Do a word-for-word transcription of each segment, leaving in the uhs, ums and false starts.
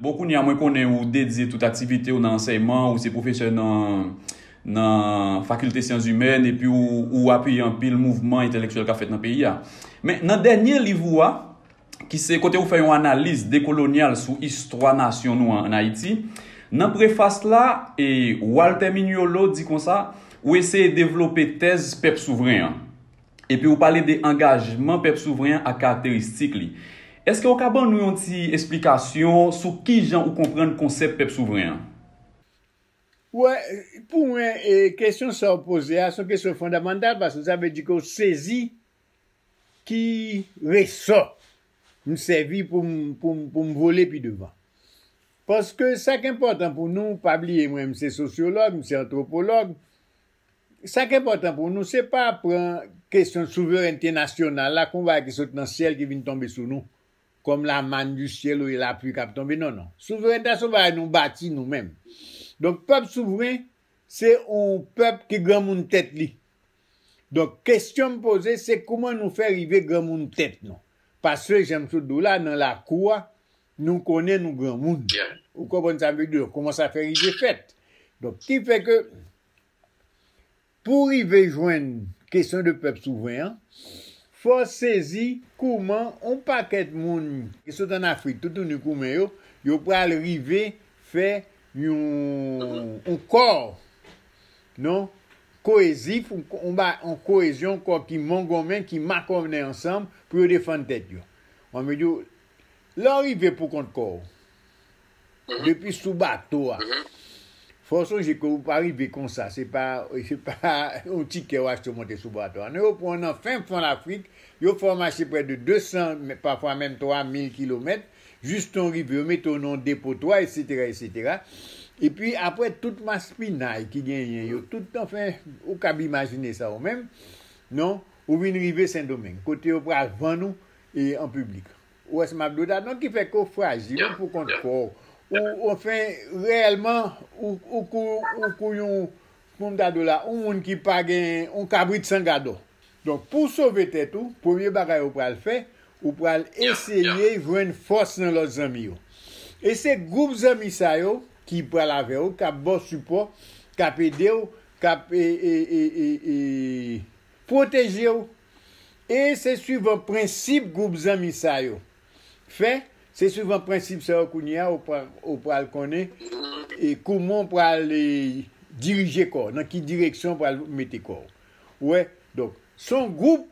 Bon, kounye a, mwen konnen ou dedye tout aktivite w nan ansèyman, ou se pwofesè nan, nan Fakilte Syans Imèn, epi ou, ou apiye anpil mouvman entèlektyèl k ap fèt nan peyi a. Men, nan dènye liv ou a, ki se kote ou fè yon analiz dekolonyal sou istwa nasyon nou an, ann Ayiti, nan prefas la, e, Walter Mignolo di konsa, ou eseye devlope tèz pèp souvren an. Epi ou pale de angajman pèp souvren an ak karakteristik li. Èske ou ka ban nou yon ti esplikasyon sou kijan ou konprann konsèp pèp souvren an? Wè, pou mwen, e, kesyon sa w poze a, se yon kesyon fondamantal, paske sa vle di ke w sezi ki resò m sèvi pou m, pou m, pou m vole pi devan. Paske sa k enpòtan pou nou, pa bliye mwen, m se sosyològ, m se antwopològ. Sa k enpòtan pou nou, se pa pran kesyon souverènte nasyonal la kon bagay ki sot nan syèl ki vin tonbe sou nou, kòm la manne du ciel ou lapli k ap tonbe. Non, non. Souverènte a se yon bagay nou bati nou menm. Donk, pèp souvren, se yon pèp ki granmoun tèt li. Donk, kesyon m poze, se kouman nou fè rive granmoun tèt nou. Paske, jan m sot di w la, nan lakou a, nou konnen nou granmoun. Ou konprann sa m vle di? Kòman sa fè rive fèt? Donk, ki fè ke pou rive jwenn kesyon de pèp souvren an, fò sezi kouman yon pakèt moun ki sot ann Afrik, toutouni koumen yo, yo pral rive fè yon, yon kò, non, koezif, yon, yon ba, yon koezyon, kò ki mongonmen, ki makònen ansanm pou yo defann tèt yo. Mwen, m di w, lè w rive pou kont kò w, depi sou bato a, fò w sonje ke ou pa rive konsa, se pa, se pa yon tikè w achte w monte sou bato a. Non, yo pran w nan fen fon Lafrik, yo fè w mache prè de de san, pafwa menm twa mil kilomèt, jis tan w rive, yo mete w nan yon depotwa, etsetera, etsetera. Epi apre tout maspinay ki genyen yo, tout, anfen, ou kab imajine sa ou menm, non, ou vin rive Sendomeng, kote yo pral vann ou e, an piblik. Ou wè sa m ap di w la? Donk, ki fè ke w frajil, ou pou kont kò w. Ou, anfen, reyèlman, ou, ou kou, ou kou yon, kòman m ta di w la, yon moun ki pa gen, yon kabrit san gadò. Donk, pou w sove tèt ou, premye bagay ou pral fè, ou pral eseye jwenn fòs nan lòt zanmi yo. E se gwoup zanmi sa yo ki pral avè w, k ap ba w sipò, k ap ede w, k ap, e, e, e, e, e, pwoteje w. E se swivan prensip gwoup zanmi sa yo fè, se swivan prensip sa yo kounye a ou pral, ou pral konnen e kouman w pral e, dirije kò w, nan ki direksyon w pral mete kò w. Ou wè? Donk, se yon gwoup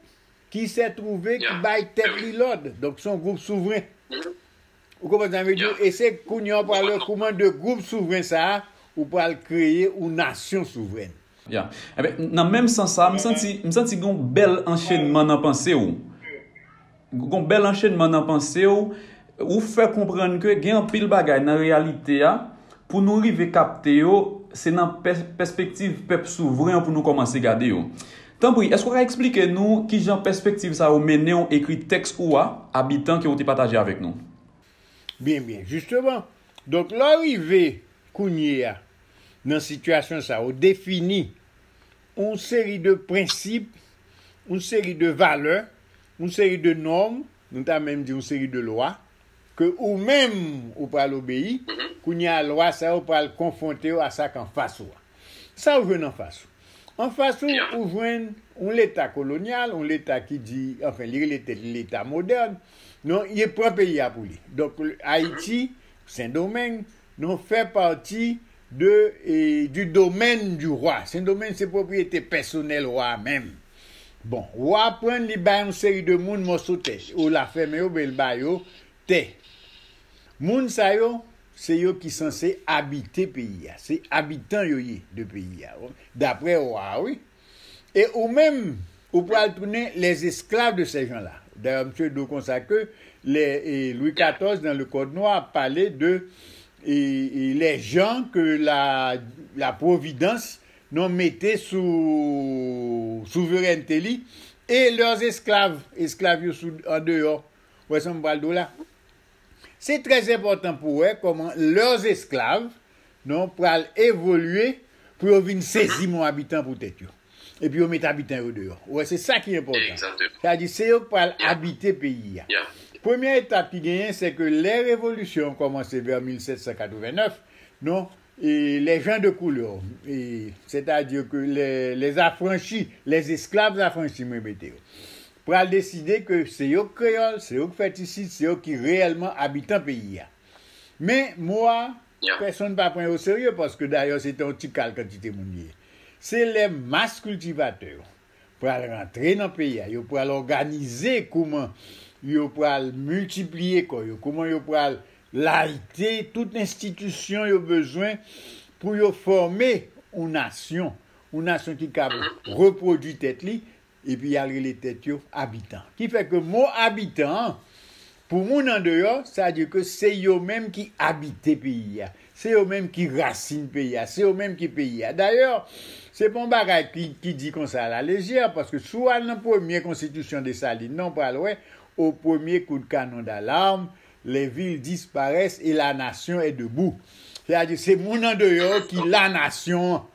ki sè twouve ki bay tèt li lòd. Donk, se yon gwoup souvren. Ou konprann sa m vle di w? E se kounye a w pral wè kouman de gwoup souvren sa a, ou pral kreye yon nasyon souvrèn. Ya. Enben, nan menm sans sa, m santi, m santi gen yon bèl anchenman nan panse w. Gen yon bèl anchenman nan panse w. Ou fè konprann ke gen anpil bagay nan reyalite a, pou nou rive kapte yo, se nan pè, pèspektiv pèp souvren an pou nou kòmanse gade yo. Tanpri, èske w ka eksplike nou kijan pèspektiv sa yo mennen w ekri tèks ou a, Abitan, ke w te pataje avèk nou? Byen, byen. Jisteman, donk, lè w rive kounye a nan sitiyasyon sa, ou defini yon seri de prensip, yon seri de valè, yon seri de nòm, nou ta menm di yon seri de lwa, ke ou menm ou pral obeyi, kounye a lwa sa yo pral konfwonte yo a sa k anfas ou a. Sa ou jwenn anfas ou? Anfas ou, ou jwenn yon leta kolonyal, yon leta ki di, anfen, li rele tèt li leta modèn. Non, li pran peyi a pou li. Donk, Ayiti, Sendomeng, non, fè pati de, e, du domaine du roi. Sendomeng se pwopriyete pèsonèl wa a menm. Bon, wa a pran l, li bay yon seri de moun mòso tè. Ou la fèmen yo, oubyen l ba yo tè. Moun sa yo, se yo ki sanse abite peyi a. Se abitan yo ye de peyi a, daprè wa a, wi. E ou menm, ou pral tounen les esclaves de ces gens-là. Dayè, misye di w konsa ke les, e, Louis katòz, dans le Code noir, pale de e, e, les gens que la, la Providence, non, mete sou souverènte li, e leurs esclaves, esklav yo sou, andeyò. Ou wè sa m pral di w la? Se trè enpòtan pou w wè kòman leurs esclaves, non, pral evolye pou yo vin sezi mon abitan pou tèt yo. Epi yo met abitan yo deyò. Ou wè, se sa ki enpòtan. Sa vle di, se yo k pral abite peyi a. Premye etap ki genyen, se ke lè revolisyon an kòmanse vè mil sèt san katreven nèf, non, e les gens de couleur, e, c'est-à-dire que les, les affranchis, les esclaves affranchis, mwen mete yo, pral deside ke se yo k kreyòl, se yo k fèt isit, se yo ki reyèlman abitan peyi a. Men, mo a, pèsonn pa pran yo serye, paske dayè, se te yon ti kal kantite moun li ye. Se lè mas kiltivatè yo pral rantre nan peyi a, yo pral òganize kouman yo pral miltipliye kò yo, kouman yo pral layite tout enstitisyon yo bezwen pou yo fòme yon nasyon, yon nasyon ki kab repwodui tèt li, epi y al rele tèt yo abitan. Ki fè ke mo abitan an, pou moun andeyò, sa di ke se yo menm ki abite peyi a. Se yo menm ki rasin peyi a. Se yo menm ki peyi a. Dayè, se pa yon bagay ki, ki di konsa alalejè, paske si w al nan premye konstitisyon Desalin nan, ou pral wè, au premier coup de canon d'alarme, les villes disparaissent et la nation est debout. Sètadi, se moun andeyò ki lanasyon an.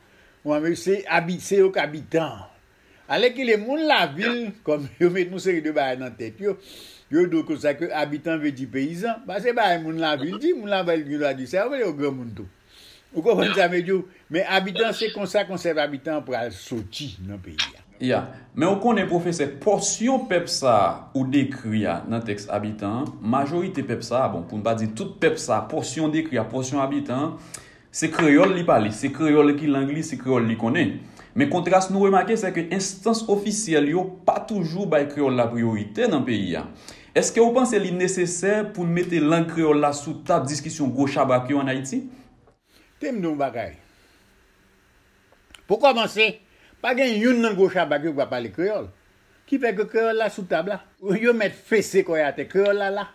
Ou konprann? Se abi-, se yo k abitan an. Alèkile, moun lavil, kòm yo met yon seri de bagay nan tèt yo, yo di w konsa ke abitan vle di peyizan. Ba, se bagay moun lavil di, moun lavil gen dwa di sa, yo vle yo granmoun tou. Ou konprann sa m vle di w? Men abitan, se konsa konsèp abitan an pral soti nan peyi a. Ya. Men ou konnen, pwofesè, pòsyon pèp sa a ou dekri a nan tèks Abitan an, majorite pèp sa a, bon, pou n pa di tout pèp sa a, pòsyon dekri a, pòsyon Abitan an, se kreyòl li pale, se kreyòl ki lang li, se kreyòl li konnen. Men kontras nou remake, se ke enstans ofisyèl yo pa toujou bay kreyòl la priyorite nan peyi a. Èske w panse li nesesè pou n mete lang kreyòl la sou tab diskisyon gwo chabrak yo ann Ayiti? Te m di w yon bagay. Pou kòmanse, pa gen youn nan gwo chabrak yo k pa pale kreyòl. Ki fè ke kreyòl la sou tab la. Yo mèt fese kò yo atè, kreyòl la la.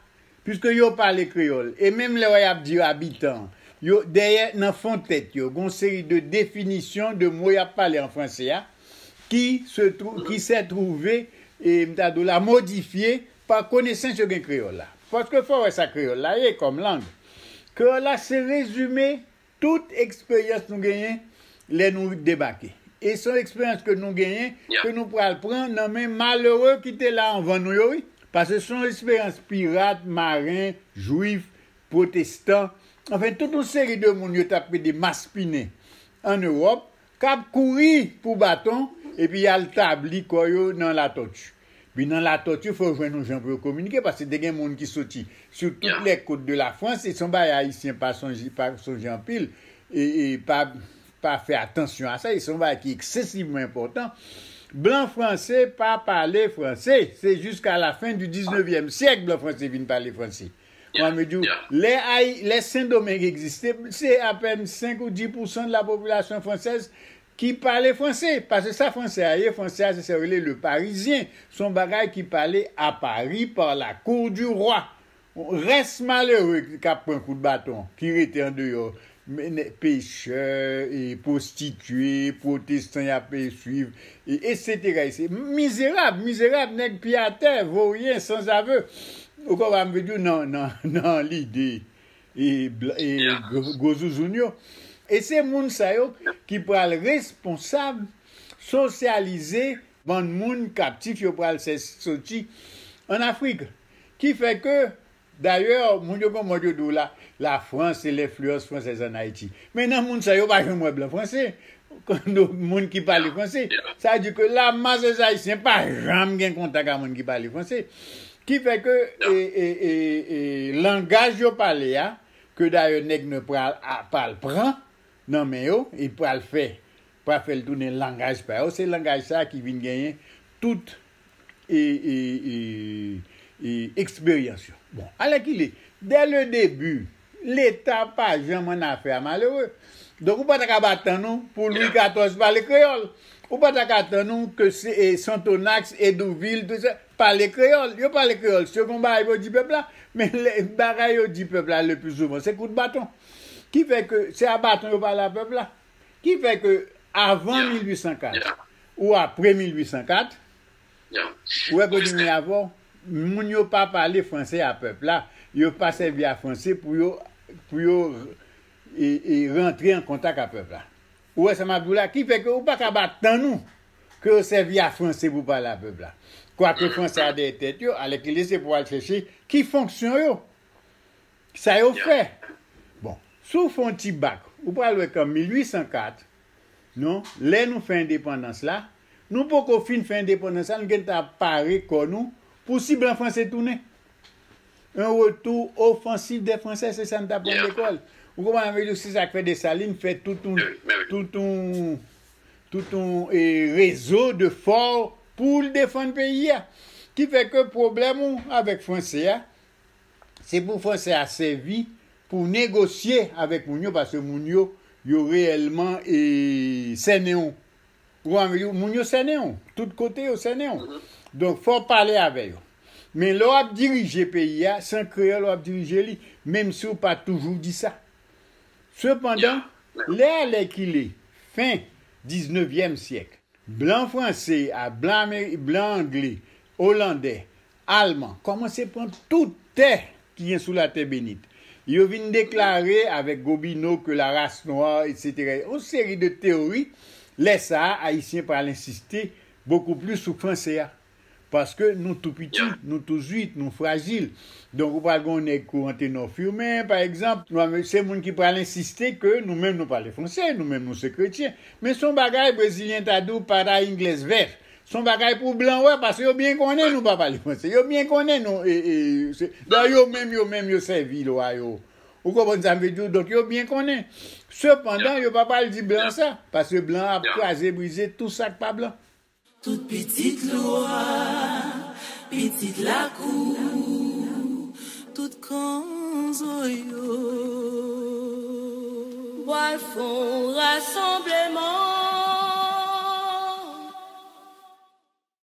Piske yo pale kreyòl. E menm lè w y ap di yo abitan, yo, dèyè, nan fon tèt yo, gon seri de definisyon de mo y ap pale an franse a, ki se twou-, ki se twouve, e, m ta di w la, modifye pa konesans yo gen kreyòl la. Paske fò w wè sa kreyòl la ye kòm lang. Kreyòl la se rezime tout eksperyans nou genyen lè nou debake. E se yon eksperyans ke nou genyen, ke nou pral pran nan men malere ki te la anvan nou yo, wi. Paske se yon eksperyans pirat, maren, jwif, pwotestan, anfen, tout yon seri de moun yo t ap rele maspinen ann Ewòp, k ap kouri pou baton, epi y al tabli kò yo nan Latòti. Pi nan Latòti, fò yo jwenn yon jan pou yo kominike, paske te gen moun ki soti sou tout lè kot de la Frans, e se yon bagay Ayisyen pa sonje, pa sonje anpil, e, e pa, pa fè atansyon a sa, e se yon bagay ki eksesivman enpòtan. Blan franse pa pale franse, se jiska la fen di diznevyèm syèk blan franse vin pale franse. Mwen, m di w, lè Ay-, lè Sendomeng egziste, se apèn senk ou dis pousan de la popilasyon fransèz ki pale franse. Paske sa franse a ye, franse a se sa yo rele le parisien. Se yon bagay ki pale à Paris par la cour du roi. Rès malere k ap pran kout baton, ki rete andeyò, men, nè-, pechè, e pwostitye, pwotestan y ap, e, swiv, e, etsetera, etsetera. Mizerab, mizerab, nèg pye atè, voryen, sanzave. Ou konprann, m vle di w nan, nan, nan lide, e, bl-, e, gwo, gwo zouzoun yo. E se moun sa yo ki pral responsab sosyalize bann moun kaptif yo pral sè-, soti ann Afrik. Ki fè ke, dayè, moun yo gon mòd yo di w la, la France et l'influence française en Haïti. Men nan moun sa yo pa janm wè blan franse, moun ki pale franse. Sa vle di ke lamas dè Ayisyen pa janm gen kontak ak moun ki pale franse. Ki fè ke, e, e, e, e, langaj yo pale a, ke dayè nèg nwa pral, a, pral pran nan men yo, e pral fè, pral fè l tounen langaj pa yo, se langaj sa a ki vin genyen tout, e, e, e, e, eksperyans yo. Bon, alèkile, dès le début, Leta pa janm annafè a malere. Donk, ou pa ta ka atann ou pou Lwi katòz pale kreyòl. Ou pa ta ka atann ou ke se, e, Sonthonax, Hédouville, tout sa, pale kreyòl. Yo pale kreyòl. Si yo gen yon bagay pou yo di pèp la, men lè, bagay yo di pèp la le pli souvan, se kout baton. Ki fè ke se a baton yo pale a pèp la. Ki fè ke avan mil uit san kat ou apre mil uit san kat, ou wè kote m ye avè w, moun yo pa pale franse a pèp la. Yo pa sèvi a franse pou yo, pou yo, e, e, rantre an kontak a pèp la. Ou wè sa m ap di w la? Ki fè ke ou pa ka atann ou ke yo sèvi a franse pou pale a pèp la. Kwake franse a dèyè tèt yo, alèkile se pou al chèche ki fonksyon yo. Sa yo fè. Bon, si w fè yon ti bak, ou pral wè ke an mil ui san kat, non, lè nou fè endepandans la, nou poko fin fè endepandans la, nou gentan ap pare kò nou pou si blan franse tounen. Un retour offensif des Français, se sa n t aprann lekòl. Ou konprann, ann di w, se sa k fè Desalin fè tout yon, tout yon, tout yon e, rezo de fò pou l defann peyi a. Ki fè ke pwoblèm ou avèk franse a, se pou franse a sèvi pou negosye avèk moun yo, paske moun yo, yo reyèlman e, sènen w. Ou konprann, moun yo sènen w. Tout kote yo sènen w. Donk, fò w pale avè yo. Men lè w ap dirije peyi a, se an kreyòl w ap dirije li, menm si w pa toujou di sa. Sepandan, lè alèkile, fen diznevyèm syèk, blan franse a, blan, Ameri- blan angle, olandè, alman kòmanse pran tout tè ki gen sou latè benit. Yo vin deklare avèk Gobineau ke la race noire, etsetera. Yon seri de teyori, lè sa a, Ayisyen pral ensiste bokou plis sou franse a. Paske nou tou piti, nou tou zwit, nou frajil. Donk, ou pral gen yon nèg kou Anténor Firmin, pa egzanp, nou, se moun ki pral ensiste ke nou menm nou pale franse, nou menm nou se kretyen. Men se yon bagay, Brezilyen ta di w, para inglês ver. Se yon bagay pou blan wè, paske yo byen konnen nou pa pale franse. Yo byen konnen nou, e, e, se, dan yo menm, yo menm, yo sèvi lwa yo. Ou konprann sa m vle di w? Donk, yo byen konnen. Sepandan, yo pa pral di blan sa, paske blan ap kraze, brize tout sa k pa blan. Tout pitit lwa, pitit lakou, tout kanzo yo. Pral fè yon rasanbleman.